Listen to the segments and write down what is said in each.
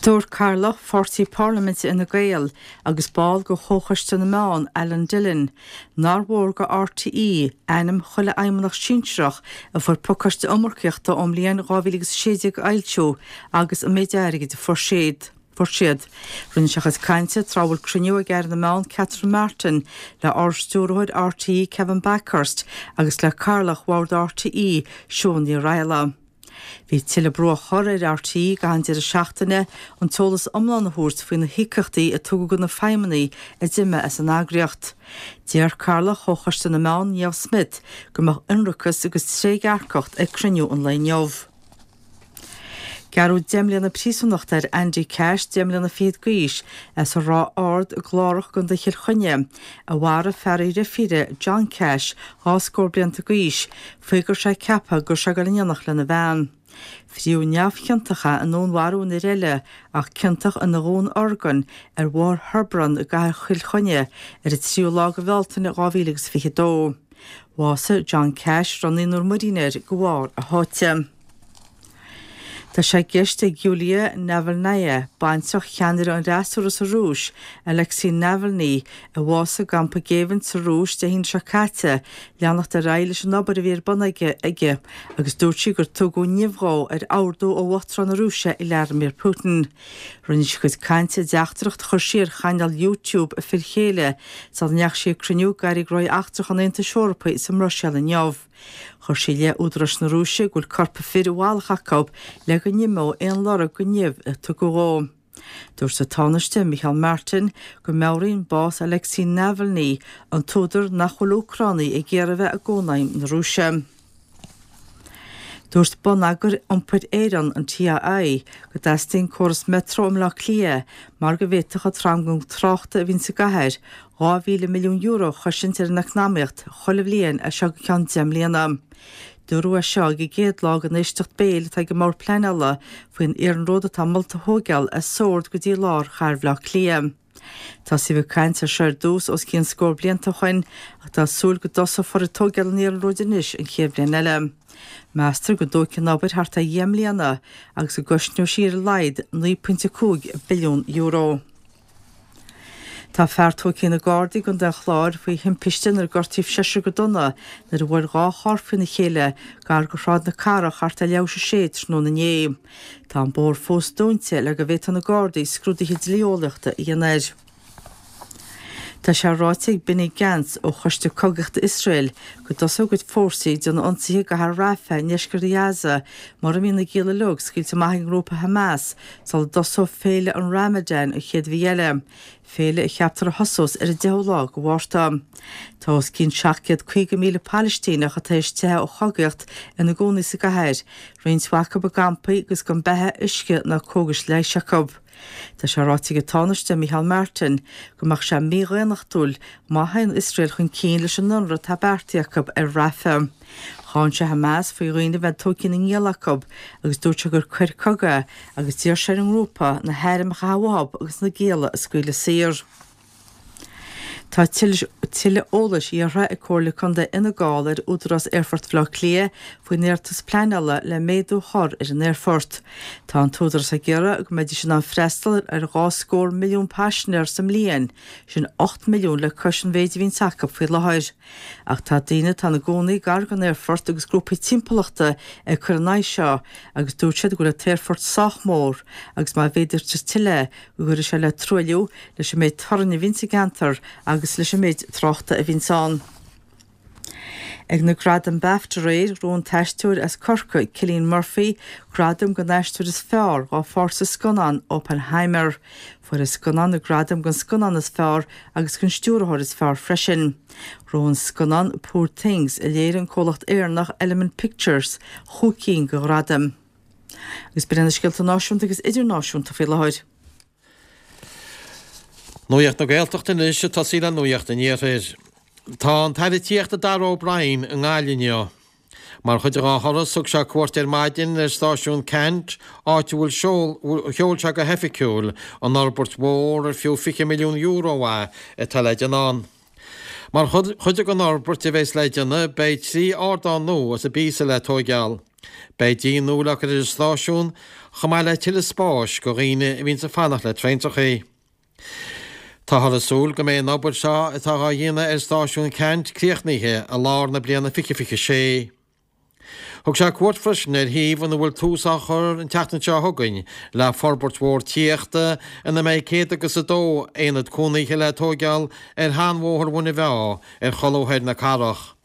Dúirt Cathaoirleach Pháirtí Parlaiminte Fhine Gael agus ball de Chomhchoiste na Meán, Alan Dillon, nár mhór do RTÉ ainm chuile fheidhmeannach sinsearach a fuair pacáiste iomarcaíochta ón mbliain 2016 a fhoilsiú agus an méid airgid a fuair siad. Fuair siad. Rinne sé a chuid cainte tráth a bhfuil cruinniú ag Aire na Meán Catherine Martin le Ard-Stiúrthóir RTÉ Kevin Bakhurst agus le Cathaoirleach Bhord RTÉ Siún Ní Raghallaigh. Bhí tuilleadh brú á chur ar RTÉ i gcaitheamh an deireadh seachtaine an t-eolas iomlán a thabhairt faoi na híocaíochtaí a tugadh do na feidhmeannaigh a d'imigh as an eagraíocht. D'iarr Cathaoirleach Chomhchoiste na Meán, Niamh Smyth, go mbeadh ionracas agus trédhearcacht ag cruinniú an lae inniu. Gearradh 10 mbliana príosúnachta ar Andy Cash, 10 mbliana fichead d'aois, as an Ráth Ard i gClárach i gContae Chill Chainnigh, a mharaigh fear a dheirfíre, John Cash, 2 scór blianta d'aois, faoi go raibh sé ag ceapadh go raibh sé ag dul in éineacht lena bhean. Fríodh neamhchiontach é i ndúnmharú an fhir eile ach ciontach ina dhúnorgain ar Bhóthar Hebron i gcathair Chill Chainnigh ar an 3ú lá de Bhealtaine 2022. Bhásaigh John Cash, a raibh naonúr muirín air, de bharr a sháite. Tá sé i gceist ag Yulia Navalnaya, baintreach cheannaire an fhreasúra sa Rúis, Alexei Navalny, a bhásaigh i gcampa géibhinn sa Rúis Dé hAoine seo caite, leanacht ar aghaidh leis an obair a bhí ar bun aici agus dúirt sí gur tugadh nimh dhó ar ordú ó Uachtarán na Rúise Vladimir Putin. Rinne sí a cuid cainte i dteachtaireacht a chuir sí ar chainéal YouTube a fir chéile sula ndeachaigh sí ag cruinniú d'airí gnóthaí eachtracha an Aontais Eorpaigh sa mBruiséil inniu. Chuir sí i leith údaráis na Rúise go bhfuil corp a fir i bhfalach acu le go n-imeodh aon lorg den nimh a tugadh dhó. Dúirt an Tánaiste Micheál Martin go meabhraíonn bás Alexei Navalny an t-údar nach bhfuil Úcránaigh ag iarraidh a bheith i gCónaidhm na Rúise. Dúirt Bonneagar Iompair Éireann, an TII, go dteastaíonn córas Metro i mBleá Cliath mar go bhféadfadh an tranglam tráchta a bhíonn sa gcathair €2,000 milliún a chosaint ar an eacnamaíocht chuile bhliain as seo go ceann 10 mbliana. Dúradh é seo ag an gcéad lá den éisteacht béil atá ag an mBord Pleanála faoin iarnród atá molta a thóigeáil as Sord go dtí lár chathair Bhaile Átha Cliath. Tosaíodh ag caint air seo ar dtús os cionn scór blianta ó shoin ach tá súil go dtosófar ag tóigeáil an iarnróid anois an chéad bhliain eile. Meastar go dtógfaidh an obair thart ar dheich mbliana agus go gcosnóidh sí ar a laghad €9.5 billiún. Tá fear tógtha ag na Gardaí i gContae an Chláir faoi thimpiste inar gortaíodh seisear go dona nuair a bhuail 2 charr faoina chéile gar do Shráid na Cathrach thart ar leathuair tar éis a sé tráthnóna inné. Tá an bóthar fós dúnta le go bhféadfaidh na Gardaí scrúduithe dlí-eolaíochta a dhéanamh air. Tá sé ráite ag Benny Gantz ó Choiste Cogaíochta Iosrael go dtosóidh a gcuid fórsaí ag déanamh ionsaithe i gcathair Rafah i ndeisceart Ghaza mura mbíonn na gialla uilig scaoilte amach ag an ngrúpa Hamas sula dtosóidh féile an Ramadan an chéad mhí eile. féile a cheaptar a thosós ar an 10ú lá de Mhárta. Tá os cionn 750,000 Palaistíneach atá tar éis teitheadh ó chogaíocht ina gcónaí sa gcathair, roinnt mhaith acu i gcampaí agus gan beatha, uisce ná cógais leighis acu. Tá sé ráite ag an Tánaiste Micheál Martin go mbeadh sé mídhaonnachtúil má théann Iosrael chun cinn leis an ionradh atá beartaithe acu ar Rafah. Cháin sé Hamas faoi dhaoine a bheith tógtha ina ngialla acu agus dúirt sé gur coir cogaidh é agus d'iarr sé ar an ngrúpa na hairm a chaitheamh uathu agus na gialla a scaoileadh saor. Tá tuilleadh eolais iarrtha ag Comhairle Contae Fhine Gall ar Údarás Aerfort Bhaile Átha Cliath faoin iarratas pleanála le méadú a chur ar an aerfort. Tá an t-údarás ag iarraidh go mbeidís in ann freastal ar 2 scór milliún paisinéir sa mbliain, sin 8 milliún le cois an mhéid a bhíonns acu faoi láthair. Ach tá daoine atá ina gcónaí gar don aerfort agus grúpaí timpeallachta ag cur in aghaidh seo agus dúirt siad go bhfuil an t-aerfort sách mór agus má mhéadaítear tuilleadh go gcuirfidh sé le truailliú, leis an méid torainn a bhíonn sa gceantar agus leis an méid tráchta a bhíonns ann. Ag na Gradaim Bafta aréir, ghnóthaigh an t-aisteoir as Corcaigh, Cillian Murphy, gradam don aisteoir is fearr dhá pháirt sa scannán Oppenheimer. Fuair an scannán na gradaim don scannán is fearr agus don stiúrthóir is fearr freisin. Ghnóthaigh an scannán Poor Things, a léirigh an comhlacht Éireannach Element Pictures, chúig cinn de ghradaim. Agus b'in iad na scéalta náisiúnta agus idirnáisiúnta faoi láthair. Nuacht na Gaeltachta anois ag tosaí le Nuacht an Iarthair. Tá an tAire Tithíochta Darragh O'Brien i nGaillimh inniu. Mar chuid dá thuras, thug sé cuairt ar maidin ar stáisiún Ceannt, áit a bhfuil sheol sé go hoifigiúil an fhorbairt mhór ar fiú €20 milliún é atá le déanamh ann. Mar chuid den fhorbairt a bheas le déanamh, beidh 3 ardán nua as an bpíosa le tóigeáil. Beidh díon nua le cur ar an stáisiún, chomh maith le tuilleadh spáis go dhaoine a bhíonns ag fanacht le traentrachaí. Táthar ag súil go mbeidh an obair seo atá dhá dhéanamh ar stáisiún Ceannt críochnaithe i lár na bliana 2026. Thug sé cuairt freisin ar shuíomh ina bhfuil tús á chur an tseachtain seo chugainn le forbairt mhór tithíochta ina mbeidh 102 aonad cónaithe le tóigeáil ar sheanbhóthar Mhuine Mheá ar cholbha thoir na cathrach.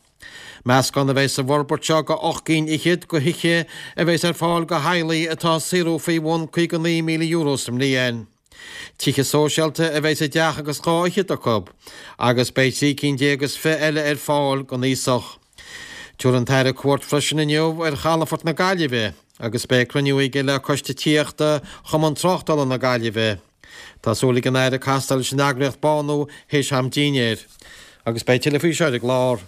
Meascán a bheidh sa bhforbairt seo go 8 gcinn fhichead go thithe a bheas ar fáil go theaghlaigh atá ag saothrú faoi bhun €59,000 sa mbliain. Tithe sóisialta a bheidh sa dteach agus 2 fhichead acu, agus beidh 13 cinn is 20 eile ar fáil don aosach. Tabharfaidh an tAire cuairt freisin inniu ar chalafort na Gaillimhe agus beidh cruinniú aige le Coiste Tithíochta Chumann Tráchtála na Gaillimhe. Tá súil ag an Aire castáil leis an eagraíocht Bánú théis am dinnéir. Agus beidh tuilleadh faoi seo ar an gclár.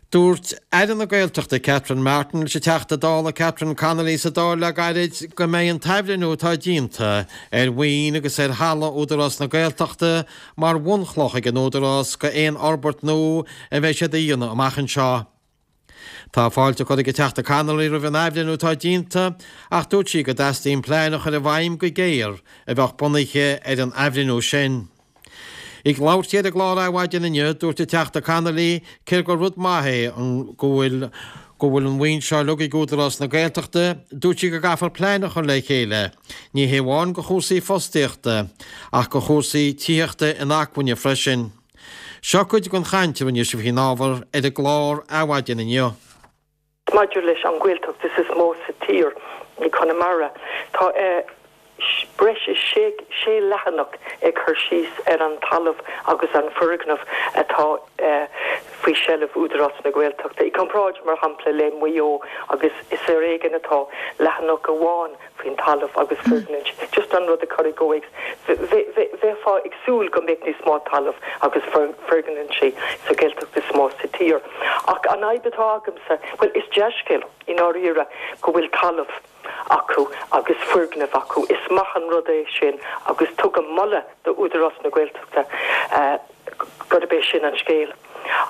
Dúirt Aire na Gaeltachta Catherine Martin leis an Teachta Dála Catherine Connolly sa Dáil le gairid go mbeidh an t-athbhreithniú atá déanta ar mhaoin agus ar thalamh Údarás na Gaeltachta mar bhunchloch ag an Údarás go aon fhorbairt nua a bheidh siad a dhéanamh amach anseo. Tá fáilte curtha ag an Teachta Connolly roimh an athbhreithniú atá déanta ach dúirt sí go dteastaíonn plean a chur i bhfeidhm go géar a bheadh bunaithe ar an athbhreithniú sin. Ag labhairt di ar an gclár Adhmhaidin inniu, dúirt an Teachta Connolly cé gur rud maith é an go bhfuil go bhfuil an mhaoin seo uilig ag Údarás na Gaeltachta, dúirt sí go gcaithfear plean a chur le chéile, ní hé amháin go chúrsaí fostaíochta, ach go chúrsaí tithíochta inacmhainne freisin. Seo cuid den chaint a rinne sí faoin ábhar ar an gclár Adhmhaidin inniu. Maidir leis an Ghaeltacht is is mó sa tír, i Conamara, tá breis is sé leathanach ag cur síos ar an talamh agus an foirgneamh atá faoi sheilbh Údarás na Gaeltachta. I gcomparáid, mar shampla, le Maigh Eo agus is ar éigean atá leathanach amháin faoin talamh agus foirgnimh. Just an rud a chur i gcomhthéacs. Bheifeá ag súil go mbeadh níos mó talamh agus foirgnimh sa Ghaeltacht is mó sa tír. Ach an fhadhb atá agamsa, bhuel, is dea-scéal i ndáiríre go bhfuil talamh acu agus foirgnimh acu. Is maith an rud é sin agus tugaim moladh do Údarás na Gaeltachta gurb é sin an scéal.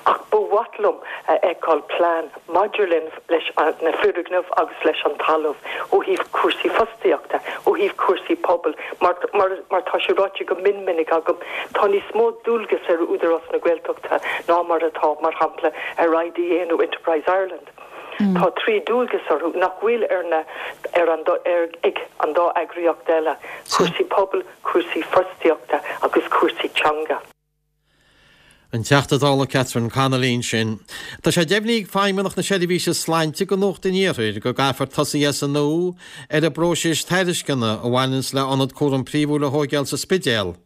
Ach ba mhaith liom a fheiceáil plean maidir leis na foirgnimh agus leis an talamh ó thaobh cúrsaí fostaíochta, ó thaobh cúrsaí pobail, mar mar tá sé ráite go mion minic agam, tá níos mó dualgas ar Údarás na Gaeltachta ná mar atá, mar shampla, ar IDA nó Enterprise Ireland. Tá 3 dualgas orthu nach bhfuil ar na ar an ar ag an dá eagraíocht eile, cúrsaí pobail, cúrsaí fostaíochta agus cúrsaí teanga. An Teachta Dála Catherine Connolly ansin. Tá sé deimhnithe ag Feidhmeannacht na Seirbhíse Sláinte go Nuacht an Iarthair go gcaithfear tosaí as an nua ar an bpróiseas tairisceana a bhaineanns le ionad cúram príomhúil a thóigeáil sa Spidéal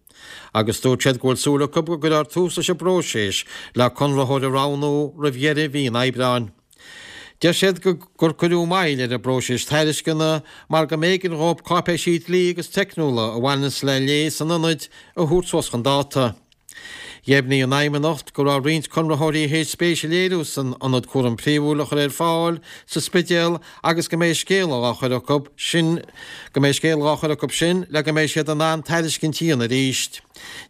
agus dúirt siad go bhfuil súil acu go gcuirfear tús leis an bpróiseas le conraitheoir a roghnú roimh dheireadh mhí an Aibreáin. Deir siad gur cuireadh moill ar an bpróiseas tairisceana mar go mb'éigean dhóibh cáipéisí dlí agus teicniúla a bhaineanns le léas an ionaid a thabhairt suas chun dáta. Dheimhnigh an Fheidhmeannacht go raibh roinnt conraitheoirí théis spéis a léiriú san ionad cúram príomhúil a chur ar fáil sa Spidéal agus go mbeidh scéala dhá chur acu sin go mbeidh scéala dhá chur acu sin le go mbeidh siad in ann tairiscint a dhéanamh arís.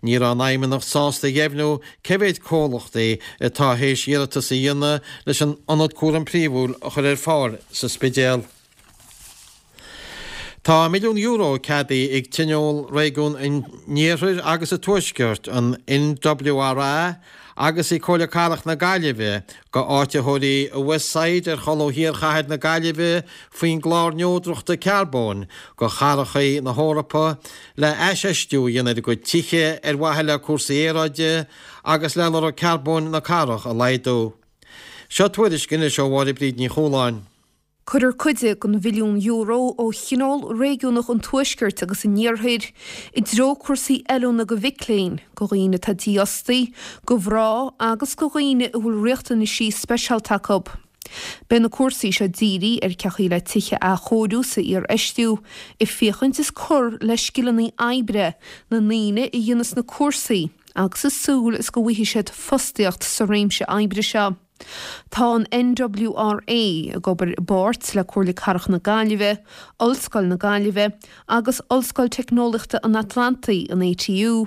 Ní raibh an Fheidhmeannacht sásta a dheimhniú Cé mhéad comhlachtaí atá théis iarratas a dhéanamh leis an ionad cúram príomhúil a chur ar fáil sa Spidéal? Tá €1 milliún ceadaithe ag Tionól Réigiún an Iarthair agus an Tuaiscirt, an NWRA, agus ag Comhairle Cathrach na Gaillimhe go áititheoirí i Westside ar cholbha thiar chathair na Gaillimhe faoin gClár Neodrachta Carbóin go Chathracha na hEorpa le haisfheistiú a dhéanamh ar a gcuid tithe ar mhaithe le cúrsaí aeráide agus le lorg carbóin na cathrach a laghdú. Seo tuairisc anois ó Mháire Bríd Ní Chualáin. Cuirfear cuid den mhilliún euro ó Thionól Réigiúnach an Tuaiscirt agus an Iarthair i dtreo cúrsaí oiliúna go mhic léinn, go dhaoine atá dífhostaí, go mhná agus go dhaoine a bhfuil riachtanaisí speisialta acu. Beidh na cúrsaí seo dírithe ar cén chaoi le tithe a athchóiriú 's a iarfheistiú, ag féachaint is cur le scileanna oibre na ndaoine a dhéanas na cúrsaí agus ag súil is go bhfaighidh siad fostaíocht sa réimse oibre seo. Tá an NWRA ag obair i bpáirt le Comhairle Cathrach na Gaillimhe, Ollscoil na Gaillimhe agus Ollscoil Teicneolaíochta an Atlantaigh, an ATU,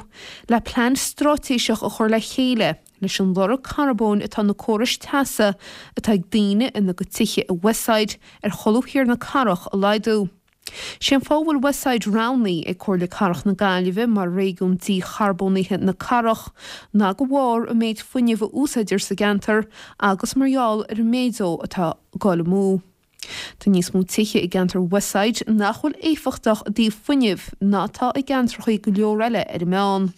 le plean straitéiseach a chur le chéile. leis an lorg carbóin atá na córais teasa atá ag daoine ina gcuid tithe i Westside ar cholbha thiar na cathrach a laghdú. Sé an fáth a bhfuil Westside roghnaithe ag Comhairle Cathrach na Gaillimhe mar réigiún dícharbónaithe na cathrach ná de bharr an méid fuinnimh a úsáidtear sa gceantar agus mar gheall ar an méid dó atá ag dul amú. Tá níos mó tithe i gceantar Westside nach bhfuil éifeachtach i dtaobh fuinnimh ná atá i gceantracha go leor eile ar an meán.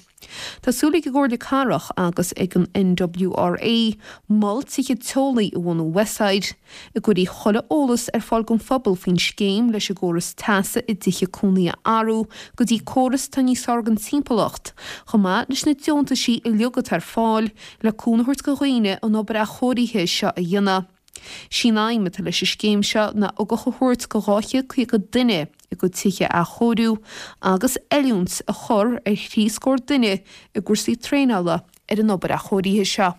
Tá súil ag an gComhairle Cathrach agus ag an NWRA mol tithe teolaí a bhunú i Westside, a gcuirfidh chuile eolas ar fáil don phobal faoin scéim leis an gcóras teasa i dtithe cónaí a athrú go dtí córas atá níos fearr don timpeallacht, chomh maith leis na deontaisí uilig atá ar fáil le cúnamh a thabhairt do dhaoine an obair athchóirithe seo a dhéanamh. Sí an aidhm atá leis an scéim seo ná ugach a thabhairt do 250 duine a gcuid tithe a athchóiriú agus oiliúint a chur ar thrí scór duine i gcúrsaí traenála ar an obair athchóirithe seo.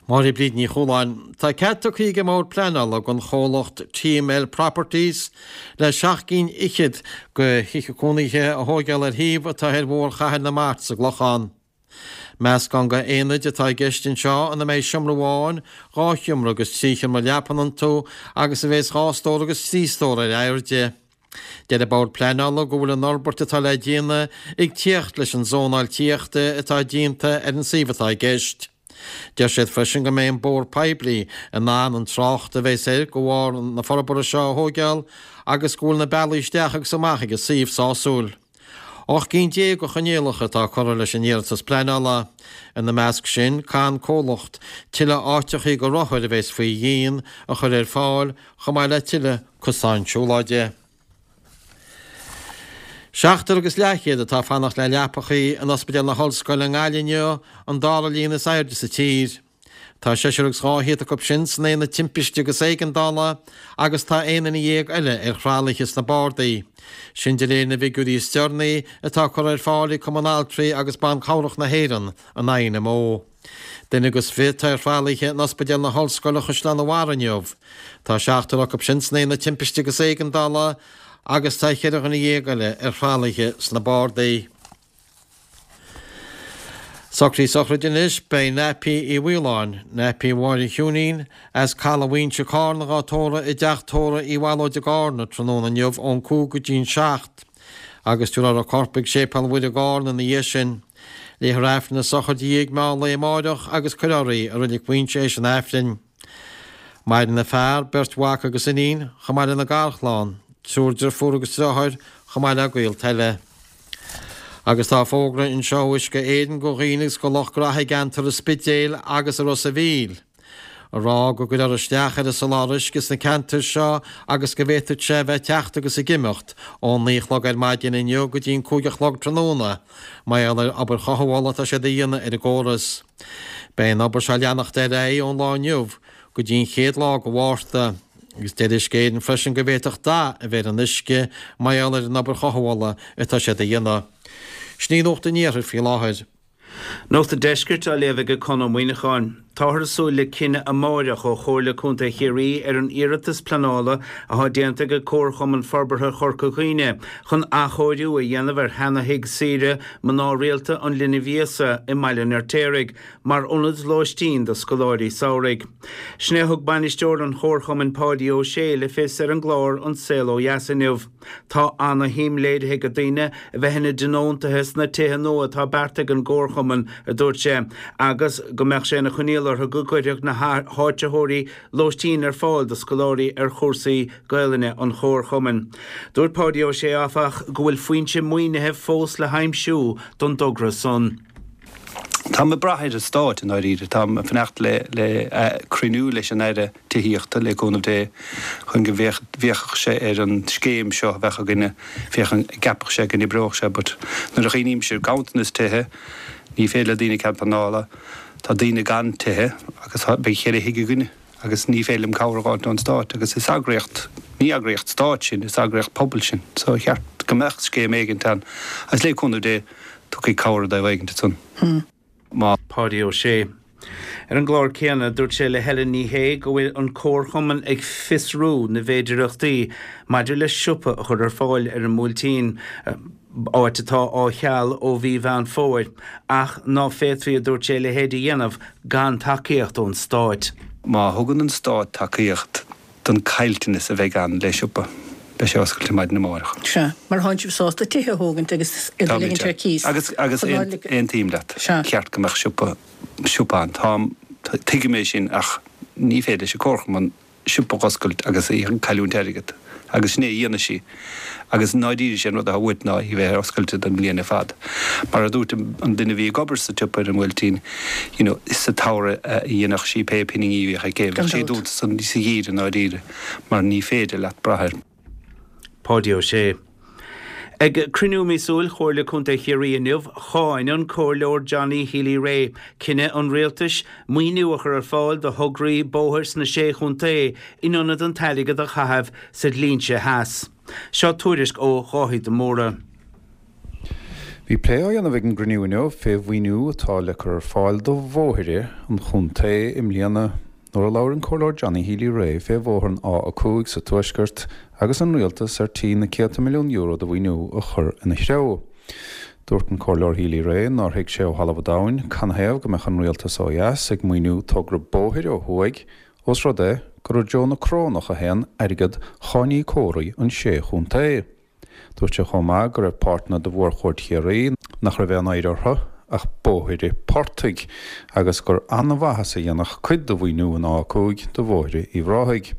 Máire Bríd Ní Chualáin. Tá cead tugtha ag an mBord Pleanála don chomhlacht TML Properties le seacht gcinn fhichead de thithe cónaithe a thóigeáil ar shuíomh atá ar Bhóthar Chathair na Mart sa gClochán. Meascán de aonaid atá i gceist anseo ina mbeidh seomra amháin, 2 sheomra agus 3 sheomra leapan iontu agus a bheas 2 stór agus 3 stór ar airde. Deir an Bord Pleanála go bhfuil an fhorbairt atá le déanamh ag tíocht leis an zónáil tithíochta atá déanta ar an suíomh atá i gceist. Deir siad freisin go mbeidh an bóthar poiblí in ann an trácht a bheas air de bharr na forbartha seo a thóigeáil agus go bhfuil na bealaí isteach agus amach ag an suíomh sásúil. 18 gcinn de choinníollacha atá curtha leis an iarratas pleanála. Ina measc sin, caithfidh an comhlacht tuilleadh áiteachaí do rothair a bheas faoi dhíon a chur ar fáil, chomh maith le tuilleadh cosáin siúlóide. Seachtar agus leathchéad atá ag fanacht le leapachaí in Ospidéal na hOllscoile i nGaillimh inniu, an dara líon is airde sa tír. Tá seisear agus 200 acu sin san aonad timpiste agus éigeandála agus tá 11 nduine eile ar thralaithe sna bardaí. Sin de réir na bhfigiúirí is deireanaí atá curtha ar fáil ag Cumann Altraí agus Ban Cabhrach na hÉireann, an INMO. Duine agus fiche atá ar thralaithe in Ospidéal na hOllscoile Chaisleán an Bharraigh inniu. Tá seachtar acu sin san aonad timpiste agus éigeandála agus tá cheithre dhuine eile ar thralaithe sna bardaí. Socruithe sochraide anois, beidh Nappy Uí Mhaoláin, Nappy Mháire Chiúinín, as Caladh Mhaínse Cárna dhá tórramh i dteach tórraimh Uí Bhallóid i gCárna tráthnóna inniu ón 5 go dtí'n 7 agus tabharfar a corp ag Séipéal Mhuire i gCárna ina dhiaidh sin. Léifear Aifreann na sochraide i ndiaidh meán lae amáireach agus cuirfear í i Reilig Mhaínse éis an Aifrinn. Maireann a fear, beirt mhac agus iníon, chomh maith lena garchlann, triúr driofúr agus driotháir, chomh maith le gaolta eile. Agus tá fógra anseo ó Uisce Éireann go dhaoine agus go lucht graithe i gceantar an Spidéil agus i Ros a' Mhíl, a rá go gcuirfear isteach ar an soláthar uisce sna ceantair seo agus go bhféadfadh sé a bheith ag teacht agus ag imeacht ón 9 a chlog ar maidin inniu go dtí an 5 a chlog tráthnóna mar gheall ar obair chothabhála atá siad a dhéanamh ar an gcóras. Beidh an obair seo ag leanacht ar aghaidh ón lá inniu go dtí an chéad lá de Mhárta, agus deir Uisce Éireann freisin go bhféadfadh dath a bheith ar an uisce mar gheall ar an obair chothabhála atá siad a dhéanamh. Sin í Nuacht an Iarthair faoi láthair. Nuacht an Deiscirt á léamh ag Conn Ó Muíneacháin. Táthar ag súil le cinneadh amáireach ó Chomhairle Contae Chiarraí ar an iarratas pleanála atá déanta ag Comharchumann Forbartha Chorca Dhuibhne chun athchóiriú a dhéanamh ar sheana-thigh saoire mná rialta an Linbh Íosa i mBaile an Fheirtéaraigh mar ionad lóistín do scoláirí samhraidh. Sin é a thug bainisteoir an Chomharchumainn Páidí Ó Sé le fios ar an gclár An Saol Ó Dheas inniu. Tá ana-shuim léirithe ag daoine a bheith ina dtionóntaithe sna tithe nua atá beartaithe ag an gComharchumann, a dúirt sé, agus go mbeadh sé ina choinníoll orthu go gcuirfeadh na háitritheoirí lóistín ar fáil do scoláirí ar chúrsaí Gaelainne an Chomharchumainn. Dúirt Páidí Ó Sé, áfach, go bhfuil foinse maoinithe fós le haimsiú don dtogra san. Táim ag brath ar an Stát i ndáiríre. Táim ag fanacht le cruinniú leis an Aire Tithíochta, le cúnamh Dé, chun go bhféachfadh sé ar an scéim seo a bheadh againne, féachaint an gceapfadh sé go n-oibreodh sé. But nuair a chuimhnímse ar ganntanas tithe, ní féidir le daoine cead pleanála, tá daoine gan tithe agus beidh cheithre thigh againne. agus ní féidir liom cabhair a dh'fháilt ón Stát agus is eagraíocht, ní eagraíocht Stáit sinn, is eagraíocht pobail sinn so ba cheart go mbeadh scéim éigint ann agus le cúnamh Dé tiocfaidh cabhair i dtaobh éigint ansan. Má. Páidí Ó Sé. Ar an gclár céanna, dúirt sé le Helen Ní Shé go bhfuil an Comharchumann ag fiosrú na bhféidireachtaí maidir le siopa a chur ar fáil ar an mBuailtín. áit atá á cheal ó mhí Mheán Fómhair, ach ná féadfaí, a dúirt sé, a leithéid a dhéanamh gan tacaíocht ón Stáit. Má thugann an Stát tacaíocht don caillteanas a bheidh ann le siopa, beidh sé oscailte maidin amárach. Sea, mar thánn sibh sásta tithe a thógaint agus iad a ligint ar cíos. Agus, agus aontaím leat, cheart go mbeadh siopa, siopa ann. Táim, tuigim é sin ach ní féidir leis an Comharchumann siopa a oscailt agus í ag cailliúint airgead. Agus sin é a dhéanfaidh sí. Agus i ndáiríre sé an rud atá uait ná í bheith ar oscailte don bhliain ar fad. Mar a dúirt an duine a bhí ag obair sa tsiopa ar an mBuailtín, you know, sa tsamhradh a dhéanfadh sí pé pinginí a bhíodh aici, bheadh sí dúnta sa gheimhreadh i ndáiríre mar ní féidir leat brath air. Páidí Ó Sé. Ag cruinniú míosúil Chomhairle Contae Chiarraí inniu, cháin an Comhairleoir Johnny Healy-Rae cinneadh an Rialtais maoiniú a chur ar fáil do thograí bóthair sna Sé Chontae in ionad an t-airgead a chaitheamh sa dlínse theas. Seo tuairisc ó Dháithí de Mórdha. Bhí plé á dhéanamh ag an gcruinniú inniu fé mhaoiniú atá le cur ar fáil do bhóithre an chontae i mbliana nuair a labhair an Comhairleoir Johnny Healy-Rae fé bhóthar an A5 sa Tuaisceart agus an Rialtas ar tí na céadta milliún euro de mhaoiniú a chur ina threo. Dúirt an Comhairleoir Healy-Rae nár thuig sé ó thalamh an domhain canathaobh go mbeadh an Rialtas ó dheas ag maoiniú togra bóthair ó thuaidh ós rud é gur i dtreo na Corónach a théann airgead cháiníocóirí an sé chontae. Dúirt sé chomh maith go raibh páirteanna de mhórchuaird Chiarraí nach raibh aon oidhre orthu ach bóithre portaigh agus gur an-mhaitheas a dhéanfadh cuid de mhaoiniú an A5 do bhóithre Uíbh Ráthaigh.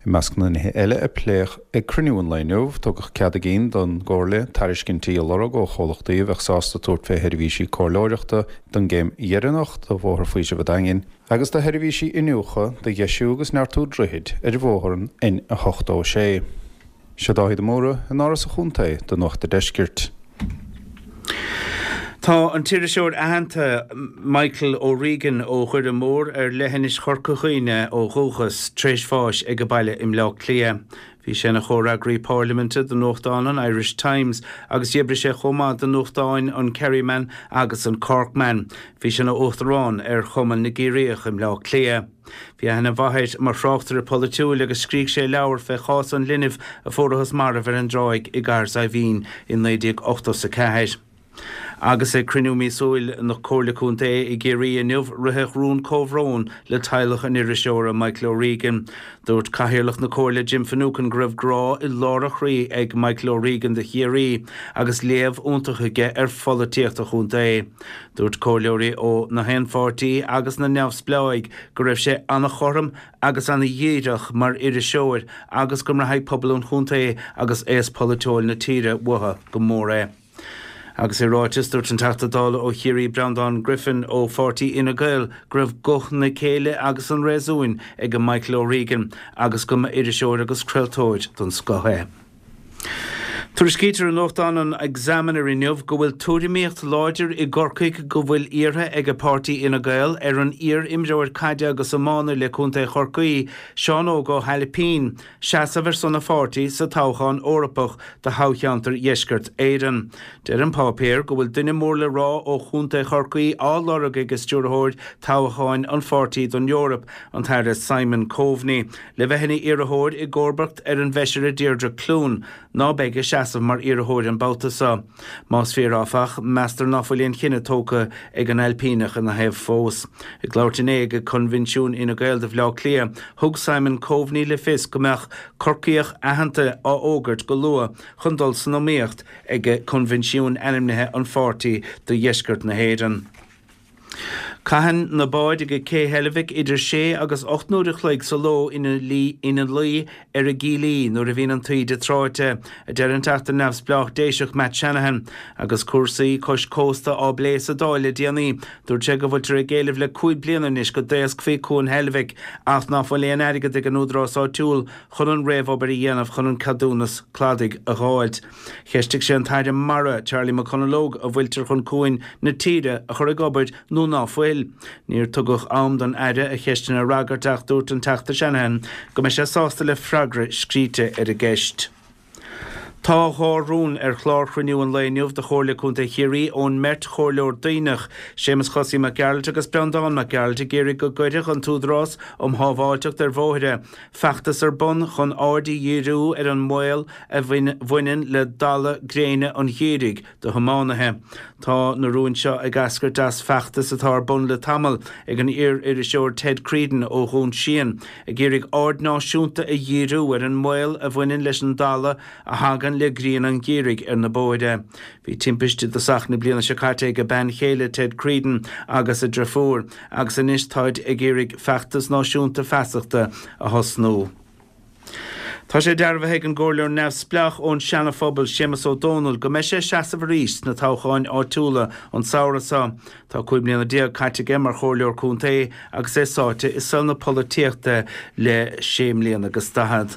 I measc na nithe eile a pléadh ag cruinniú an lae inniu, tugadh cead a gcinn don gComhairle tairiscintí a lorg ó chomhlachtaí a bheadh sásta tabhairt fé sheirbhísí comhairleoireachta don gcéim dheireanach de Bhóthar Faoisimh an Daingin agus do sheirbhísí iniúchadh do dheisiú agus neartú droichid ar bhóthar an N86. Seo Dáithí de Mórdha in Áras an Chontae do Nuacht a' Deiscirt. Tá an t-iriseoir aitheanta Michael O'Regan ó Dhoire Mór ar leithinis Chorca Dhuibhne ó dhúchas, tar éis bháis ag baile i mBleá Cliath. Bhí sé ina chomhfhreagraí pairliminte do nuachtán an Irish Times agus d'oibrigh sé chomh maith do nuachtáin an Kerryman agus an Corkman. Bhí sé ina uachtarán ar Chumann na gCiarraíoch i mBleá Cliath. Bhí aithne mhaith air mar thráchtaire polaitiúil agus scrígh sé leabhar fé chás an linbh a fuarathas marbh ar an dtráigh i gCathair Saidhbhín i 1984. Agus ag cruinniú míosúil na Comhairle Contae i gCiarraí inniu ritheadh rún comhbhróin le teaghlach an iriseora Michael O'Regan. Dúirt Cathaoirleach na Comhairle Jim Finucane go raibh grá i lár a chroí ag Michael O'Regan do Chiarraí agus léamh iontach aige ar pholaitíocht an chontae. Dúirt comhairleoirí ó na haon pháirtí agus na neamhspleáigh go raibh sé an-chothrom agus an-dhíreach mar iriseoir agus go mbraithfidh pobal an chontae agus aos polaitiúil na tíre uathu go mór é. Agus i ráiteas, dúirt an Teachta Dála ó Chiarraí Breandán Griffin ó pháirtí Fhine Gael go raibh guth na céille agus an réasúin ag Michael O'Regan agus go mba iriseoir agus craoltóir den scoth é. Tuairiscítear i nuachtán an Examiner inniu go bhfuil tuairimíocht láidir i gCorcaigh go bhfuil iarrtha ag páirtí Fhine Gael ar an iar-imreoir caide agus iománaí le Contae Chorcaí, Seán Óg Ó hAilpín, seasamh ar son a pháirtí sa toghchán Eorpach do thoghcheantar Dheisceart Éireann. Deir an páipéar go bhfuil duine mór le rá ó Chontae Chorcaí á lorg ag stiúrthóir toghcháin an pháirtí don Eoraip, an tAire Simon Coveney. Le bheith ina iarrthóir i gcomharbacht ar an bhFeisire Deirdre Clune, ná beidh ag seasamh mar iarrthóir an babhta seo. Más fíor áfach, meastar ná fuil aon chinneadh tógtha ag an Ailpíneach ina thaobh fós. Ag labhairt inné ag Coinbhinsiún Fhine Gael do Bhleá Cliath, thug Simon Coveney le fios go mbeadh Corcaíoch aitheanta á fhógairt go luath chun dul san iomaíocht ag Coinbhinsiún ainmnithe an pháirtí do Dheisceart na hÉireann. Caitheann na báid ag Cé Heilbhic idir sé agus 8 n-uair a chloig sa ló ina luí ar a gcílí nuair a bhíonn an taoide tráite, a deir an Teachta Neamhspleách Déiseach Matt Shanahan. Agus cúrsaí cois cósta á bplé sa Dáil le déanaí, dúirt sé go bhfuiltear ag éileamh le 5 bliana anois go dtaoscfaí Cuan Heilbhic ach ná fuil aon airgead ag an údarás áitiúil chun an réamhobair a dhéanamh chun an ceadúnas cladaigh a dh'fháilt. Cheistigh sé an tAire Mara, Charlie McConalogue, an bhfuiltear chun cuain na tíre a chur ag obair nó ná fuil. Níor tugadh am don Aire a cheisteanna a fhreagairt ach dúirt an Teachta Shanahan go mbeidh sé sásta le freagra scríte ar an gceist. Tá 2 rún ar chlár chruinniú an lae inniu de Chomhairle Contae Chiarraí ón mbeirt chomhairleoir Duibhneach, Séamus Chosaí Mac Gearailt agus Breandán Mac Gearailt ag iarraidh go gcuirfeadh an tÚdarás um Shábháilteacht ar Bhóithre feachtas ar bun chun aird a dhíriú ar an mbaol a bhaineann le dalladh gréine an gheimhridh do thiománaithe. Tá na rúin seo ag eascairt as feachtas atá ar bun le tamall ag an iar-iriseoir Ted Creedon ó Dhún Síon, ag iarraidh aird náisiúnta a dhíriú ar an mbaol a bhaineann leis an dalladh a thagann le grian an gheimhridh ar na bóithre. Bhí timpiste i dtosach na bliana seo caite ag a bean chéile Ted Creedon agus a driofúr, agus anois táid ag iarraidh feachtas náisiúnta feasachta a thosnú. Tá sé dearbhaithe ag an gComhairleoir neamhspleách ón Seana-Phobal, Séamus Ó Dónaill, go mbeidh sé ag seasamh arís sna toghcháin áitiúla an samhradh seo. Tá 15 mbliana caite aige mar Chomhairleoir Contae agus é sáite i saol na polaitíochta le sé mbliana agus daichead.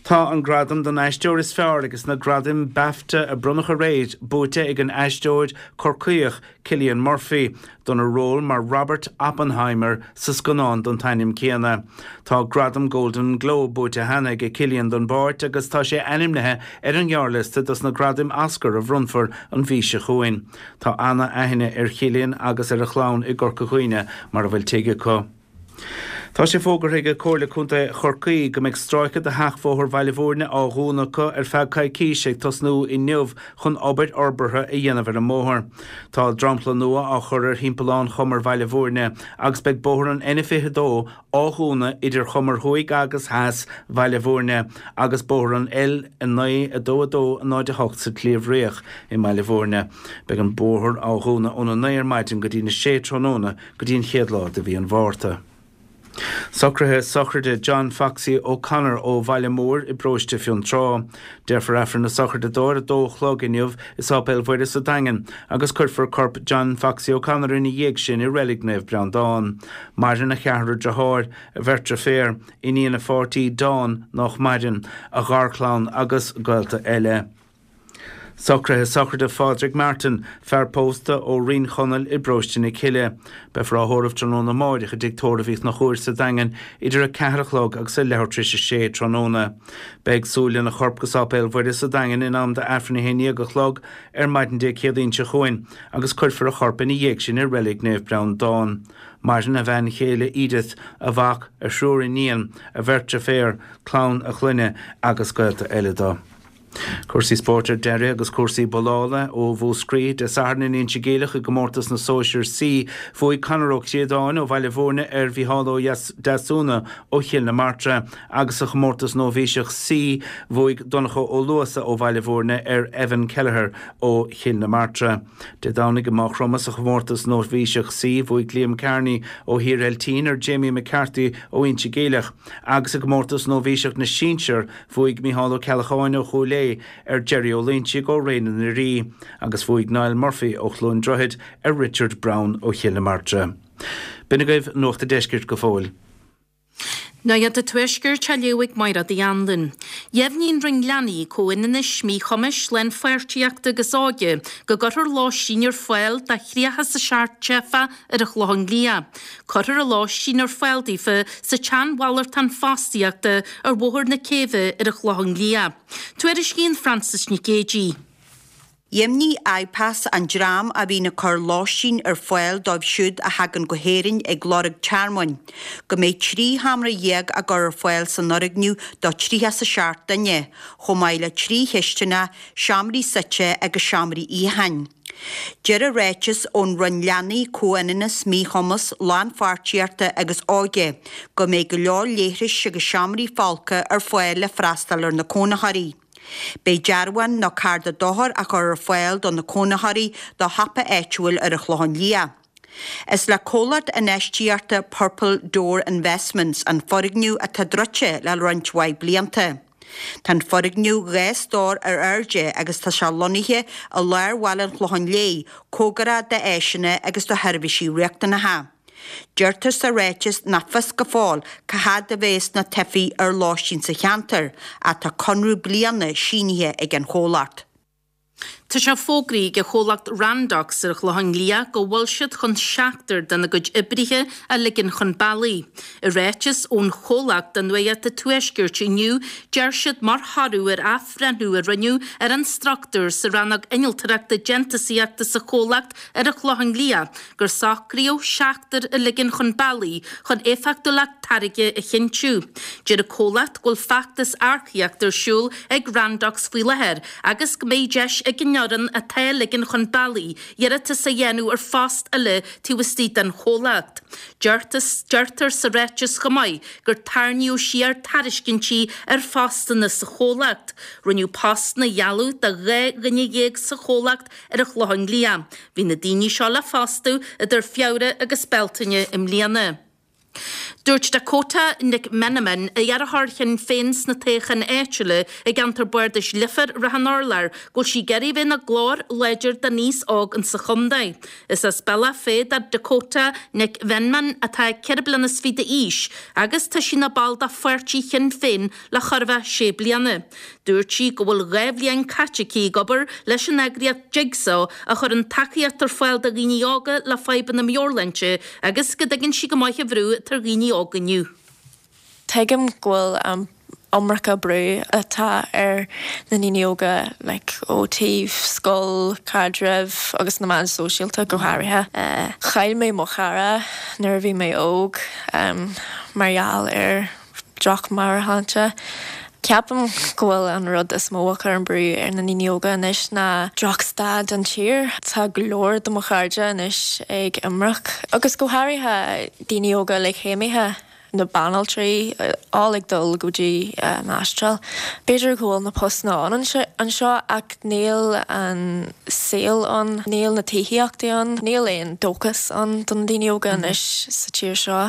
Tá an gradam don aisteoir is fearr ages na gradaim Bafta a bronnadh aréir buaite ag an aisteoir Corcaíoch Cillian Murphy dona ról mar Robert Oppenheimer sa scannán den t-ainm céanna. Tá gradam Golden Globe buaite cheana aige Cillian don bpáirt agus tá sé ainmnithe ar an ghearrliosta dos na gradaim Oscar a bhronnfar an mhí seo chugainn. Tá ana-aithne ar Chillian agus ar a chlann i gCorca Dhuibhne mar a bhfuil tigh acu. Tá sé fógartha ag Comhairle Contae Chorcaí go mbeidh stráice de sheachbhóthar Bhaile Bhúirne á dhúnadh acu ar feadh coicíse ag tosnú inniu chun obair fhorbartha a dhéanamh ar an mbóthar. Tá dromchla nua á chur ar thimpeallán Chumar Bhaile Bhúirne agus beidh bóthar an N22 á dhúnadh idir Chumair Thuaidh agus Theas Bhaile Bhúirne agus bóthar an L9 2 2 0 8 sa tSliabh Riach i mBaile Bhúirne. Beidh an bóthar á dhúnadh óna 9 ar maidin go dtí na 6 tráthnóna go dtí an chéad lá de mhí an Mhárta. Socruithe sochraide John Foxy O'Connor ó Bhaile Móir i bparóiste Fionntrá. Déarfar Aifreann na sochraide dó ar a dó a chlog inniu i Sáipéal Mhuire sa Daingean agus cuirfear corp John Foxy O'Connor ina dhiaidh sin i Reilig Naomh Breandán. Maireann a cheathrar deartháir, a bheirt deirféar, iníon a pháirtí Dawn nách maireann, a gharchlann agus gaolta eile. Socruithe sochraide Phádraig Martin, fear pósta ó Rinn Chonaill i bparóiste na Cille. Beifear á thórramh tráthnóna amáireach i dTigh Tórraimh Uí Chonchúir sa Daingean idir 4 a chlog agus a leathuair tar éis a sé tráthnóna. Beidh súil lena chorp go Sáipéal Mhuire sa Daingean in am d'Aifreann a haon dhéag a chlog ar maidin Dé Céadaoin seo chugainn agus cuirfear a chorp ina dhiaidh sin i Reilig Naomh Breandán. Maireann a bhean chéile Edith, a mhac, a thriúr iníon, a bheirt deirféar, clann a chlainne agus gaolta eile dó. Cúrsaí spóirt ar deireadh agus cúrsaí bollála ó Mhúscraí. Dé Sathairn in Inse Geimhleach i gcomórtas na Sóisear C, bhuaigh Conor Ó Críodáin ó Bhaile Bhúirne ar Mhícheál Ó Deasúna ó Chill na Martra agus sa chomórtas Nóibhíseach C, bhuaigh Donncha Ó Luasa ó Bhaile Bhúirne ar Evan Kelleher ó Chill na Martra. Dé Domhnaigh i Maigh Chromtha sa chomórtas Nóibhíseach C, bhuaigh Liam Kearney ó Thír Eiltín ar Jamie McCarthy ó Inse Geimhleach agus i gcomórtas Nóibhíseach na Sinsear, Bhuaigh Micheál Ó Ceallacháin ó Chúil Aodha ar Jerry Ó Loinsigh ó Ré na nDoirí agus bhuaigh Niall Murphy ó Chluain Droichid ar Richard Browne ó Chill na Martra. B'in agaibh Nuacht a' Deiscirt go fóill. Nuacht an Tuaiscirt á léamh ag Máire Uí Anluain. Dheimhnigh an Roinn Leanaí, Comhionannais, Míchumais, Lánpháirtíochta agus Óige go gcuirfear lóistín ar fáil do 37 teifeach ar an Chlochán Liath. Cuirfear an lóistín ar fáil daofa sa tsean-mhalartán fostaíochta ar Bhóthar na Céibhe ar an Chlochán Liath. Tuairiscíonn Frances Nic Géadaigh. Dheimhnigh IPAS, an dream a bhíonn ag cur lóistín ar fáil dóibh siúd a thagann go hÉirinn ag lorg tearmainn, go mbeidh 13 sheomra á gcur ar fáil san fhoirgneamh do 37 duine, chomh maith le 3 chistineach, seomraí suite agus seomraí itheacháin. Deir an ráiteas ón Roinn Leanaí, Comhionannas, Míchumas, Lánpháirtíochta agus Óige go mbeidh go leor leithris agus seomraí folctha ar fáil le freastal ar na cónaitheoirí. Beidh dearbhán nó cárta dochair á chur ar fáil do na cónaitheoirí do shiopa áitiúil ar an Chlochán Liath. Is le comhlacht infheistíochta Purple Door Investments an foirgneamh atá druidte le roinnt mhaith blianta. Tá an foirgneamh 2 stór ar airde agus tá sé lonnaithe i lár bhaile an Chlocháin Léith, cóngarach d'áiseanna agus do sheirbhísí riachtanacha. Deirtear sa ráiteas nach fios go fóill cá fhad a bheas na teifigh ar lóistín sa cheantar, ach tá conradh bliana sínithe ag an chomhlacht. Tá sé fógraithe ag an chomhlacht Randox ar an Chlochán Liath go bhfuil siad chun seachtar dena gcuid oibrithe a ligean chun bealaigh. I ráiteas ón chomhlacht do Nuacht an Tuaiscirt inniu, deir siad mar thoradh ar athbhreithniú a rinneadh ar an struchtúr sa rannóg innealtóireachta déantúsaíochta sa chomhlacht ar an Chlochán Liath gur socraíodh seachtar a ligean chun bealaigh chun éifeachtúlacht táirge a chinntiú. Deir an comhlacht go bhfuil feachtas earcaíochta ar siúl ag Randox faoi láthair agus go mbeidh deis ag an fhoireann atá á ligean chun bealaigh iarratas a dhéanamh ar phost eile taobh istigh den chomhlacht. Deirtear sa ráiteas chomh maith gur tarraingíodh siar tairiscintí ar phostanna sa chomhlacht. Rinneadh postanna a ghealladh do 12 dhuine sa chomhlacht ar an Chlochán Liath. Bhí na daoine seo le fostú idir Feabhra agus Bealtaine i mbliana. Dúirt Dakota Nic Mheanman, iarrthóir Shinn Féin sna toghcháin áitiúla i gceantar bardais Leifear Ráth an Urláir, go bhfuil sí ag iarraidh bheith ina glór láidir don aos óg insa chontae. Is as Bealach Féich do Dakota Nic Mheanman atá 24 bliana d'aois agus tá sí ina ball de pháirtí Shinn Féin le chóir a bheith sé bliana. Dúirt sí go bhfuil 2 bhliain caite aici ag obair leis an eagraíocht Jigsaw a chuireann tacaíocht ar fáil do dhaoine óga le fadhbanna meabhairshláinte agus go dtuigeann sí go maith an bhrú atá ar dhaoine óga inniu. Tuigim go bhfuil an iomarca brú atá ar na ndaoine óga like ó taobh scoil, caidrimh agus na meáin sóisialta go háirithe. Chaill mé mo chara nuair a bhí mé óg mar gheall ar droch-mheabhairshláinte. Ceapaim go bhfuil an rud is mó a chuireann brú ar na ndaoine óga anois ná drochstaid an tír. Tá go leor de mo chairde anois ag imirce, agus go háirithe daoine óga like céimithe, na banaltraí, all ag dul go dtí an Astráil. B'fhéidir go bhfuil na postanna ann anseo ach níl an saol ann, níl na tithíochtaí ann, níl aon dóchas ann do na daoine óga anois sa tír seo.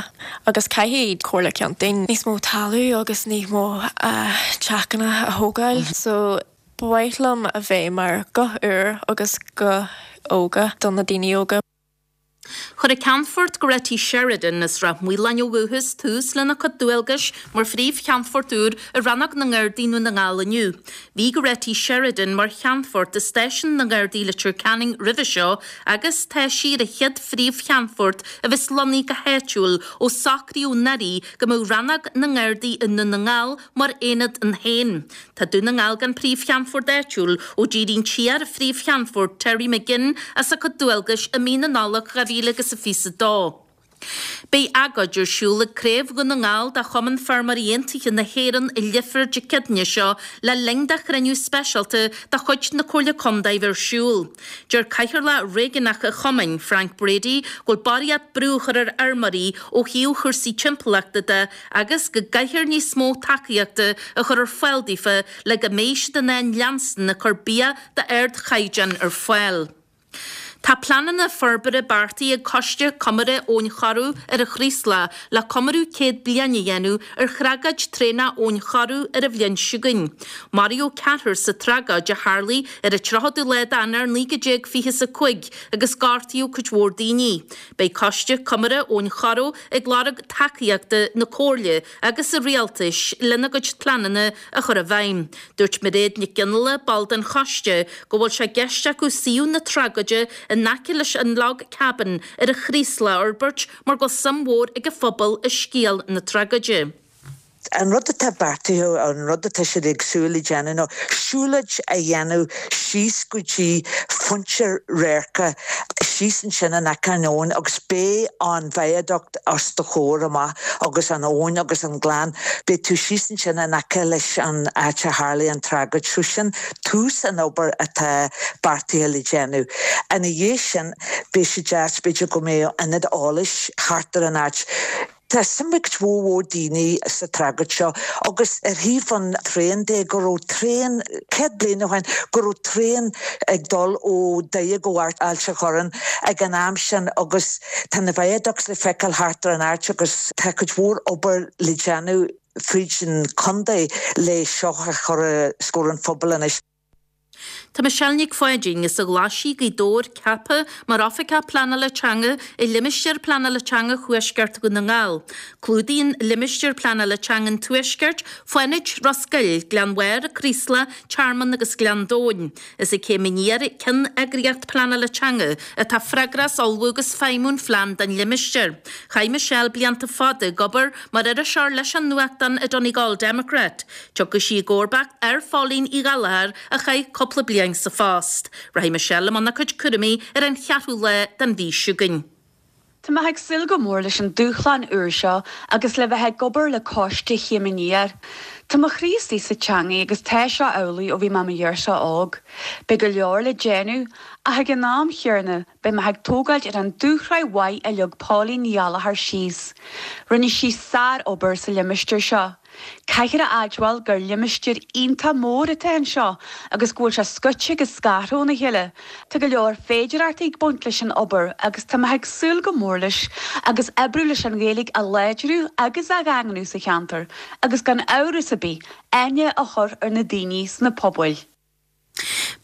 Agus caithfidh Comhairle Contae níos mó talamh agus níos mó teachana a thógáil. So ba mhaith liom a bheith mar guth úr agus guth óga do na daoine óga. Chuir an Ceannfort Goretti Sheridan as Ráth Maoláin ó dhúchas tús lena cuid dualgais mar Phríomh-Cheannfort úr i Rannóg na nGardaí i nDún na nGall inniu. Bhí Goretti Sheridan mar Cheannfort i Stáisiún na nGardaí Leitir Ceanainn roimhe seo agus tá sí ar an chéad Phríomh-Cheannfort a bheas lonnaithe go háitiúil ó socraíodh anuraidh go mbeadh Rannóg na nGardaí i nDún na nGall mar aonad ann féin. Tá Dún na nGall gan Príomh-Cheannfort áitiúil ó d'éirigh an t-iar-Phríomh-Cheannfort Terry McGinn as a cuid dualgais i mí na Nollag 2022. Beidh agóid ar siúl ag Craobh Dhún na nGall de Chumann Feirmeoirí Aontaithe na hÉireann i Leifear Dé Céadaoine seo le linn do chruinniú speisialta de chuid na Comhairle Contae bheith ar siúl. Deir Cathaoirleach Réigiúnach an Chumainn, Frank Brady, go bhfuil barraíocht brú á chur ar fheirmeoirí ó thaobh chúrsaí timpeallachta de agus go gcaithfear níos mó tacaíochta a chur ar fáil daofa le go mbeidh siad in ann leanstan ag cur bia d'ardchaighdeán ar fáil. Tá pleananna forbartha beartaithe ag Coiste Comórtha Abhainn Choireadh ar an Chraoslach le comóradh 100 bliain a dhéanamh ar thragóid traenach Abhainn Choireadh ar an bhliain seo chugainn. Maraíodh ceathrar sa tragóid a tharlaigh ar an 30ú lá d'Eanáir 1925 agus gortaíodh cuid mhór daoine. Beidh Coiste Comórtha Abhainn Choireadh ag lorg tacaíochta na Comhairle agus an Rialtais lena gcuid pleananna a chur i bhfeidhm. Dúirt Mairéad Nic Fhionnghaile, ball den choiste, go bhfuil sé i gceist acu suíomh na tragóide in aice leis an Log Cabin ar an Chraoslach a fhorbairt mar go bhfuil suim mhór ag an phobal i scéal na tragóide. An rud atá beartaithe, an rud atá siad ag súil le déanamh ná siúlóid a dhéanamh síos go dtí pointe radhairce síos ansin in aice an abhainn agus beidh an viaduct os do chomhair amach agus an abhainn agus an gleann. Beidh tú síos ansin in aice leis an áit a tharlaigh an tragóid. So sin tús an obair atá beartaithe le déanamh. Ina dhiaidh sin, beidh sé deas b'fhéidir go mbeadh ionad eolais thart ar an áit. Tá suim ag cuid mhór mhór daoine sa tragóid seo agus ar thaobh an traein de, go raibh traein, 100 bliain ó shin, go raibh traein ag dul ó Doire go Ailt a' Chorráin ag an am sin agus Tá na viaducts le feiceáil thart ar an áit agus tá cuid mhór obair le déanamh fríd an chontae le seo a chur os comhair an phobail anois. Tá Michelle Nic Pháidín as an Ghlaisigh, Gaoth Dobhair, ceaptha mar Oifigeach Pleanála Teanga i Limistéar Pleanála Teanga Thuaisceart Dhún na nGall. Clúdaíonn Limistéar Pleanála Teanga an Tuaiscirt, Fánaid, Ros Goill, Gleann Bharr, Craoslach, Tearmann agus Gleann Domhain. Is ag Céim Aniar, ceanneagraíocht pleanála teanga, atá freagrach as ullmhú agus feidhmiú an phlean don limistéar. Chaith Michelle blianta fada ag obair mar iriseoir leis an nuachtán an Donegal Democrat. Tiocfaidh sí i gcomharbacht ar Phóilín Uí Ghallchóir a chaith cúpla bliain sa phost. Rachaidh Michelle i mbun a cuid cúraimí ar an cheathrú lá den mhí seo chugainn. Tá mé ag súil go mór leis an dúshlán úr seo agus le bheith ag obair le coiste Chéim Aniar. Tá mo chroí istigh sa teangaidh agus tá seo amhlaidh ó bhí mé i mo ghirseach óg. Beidh go leor le déanamh ach ag an am chéanna beidh mé ag tógáilt ar an dúshraith mhaith a leag Póilín Ní Ghallchóir síos. Rinne sí sár-obair sa limistéar seo. Caithfear a admháil gur limistéar iontach mór atá anseo agus go bhfuil sé scoite agus scartha óna chéile. Tá go leor féidearthachtaí ag baint leis an obair agus tá mé ag súil go mór leis agus oibriú leis an Ghaeilge a láidriú agus a dhaingniú sa cheantar agus gan amhras ar bith aithne a chur ar na daoine sna pobail.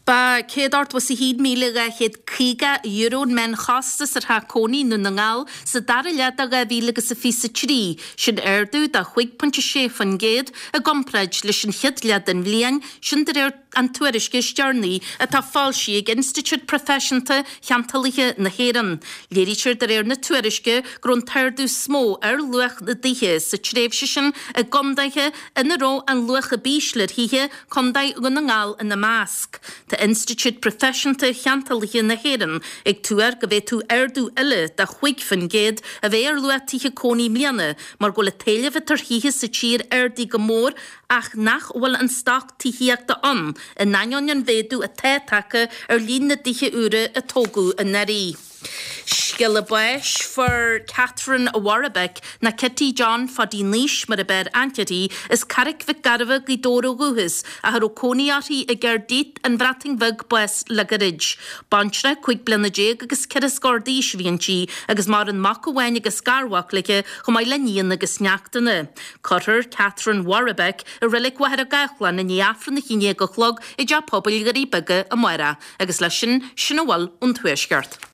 Ba €181,250 an meánchostas ar theach cónaí i nDún na nGall sa dara leath de 2023, sin ardú de 5.6% i gcomparáid leis an chéad leath den bhliain, sin de réir an tuairisce is deireanaí atá foilsithe ag Institiúid Proifisiúnta Cheantálaithe na hÉireann. Léirítear de réir na tuairisce go raibh an t-ardú is mó ar luach na dtithe sa tréimhse sin i gcontaetha ina raibh an luach ab ísle ar thithe, Contae Dhún na nGall ina measc. Tá Institiúid Proifisiúnta Cheantálaithe na hÉireann ag tuar go bhféadfadh ardú eile de 5% a bheith ar luach tithe cónaí i mbliana mar go bhfuil an t-éileamh atá ar thithe sa tír ardaithe go mór ach nach bhfuil an stoc tithíochta ann in ainneoin an mhéadú atá tagtha ar líon na dtithe úra a tógadh anuraidh. Scéala báis Fuair Catherine Warbeck, nó Kitty John Phaidí Naois mar ab fhearr aithne uirthi, as Carraic Mhic Gairbheith, Gaoth Dobhair ó dhúchas, ach a raibh cónaí uirthi i gCaerdydd, An Bhreatain Bheag, bás le gairid. Baintreach 15 bliana agus ceithre scór d'aois a bhí inti agus maireann mac amháin agus garmhac léi chomh maith le nianna agus neachtanna. Cuirfear Catherine Warbeck i Reilig Mhachaire Gathlán i ndiaidh Aifreann a haon déag a chlog i dTeach Pobail Dhoirí Beaga amárach. Agus leis sin, sin a bhfuil ón Tuaisceart.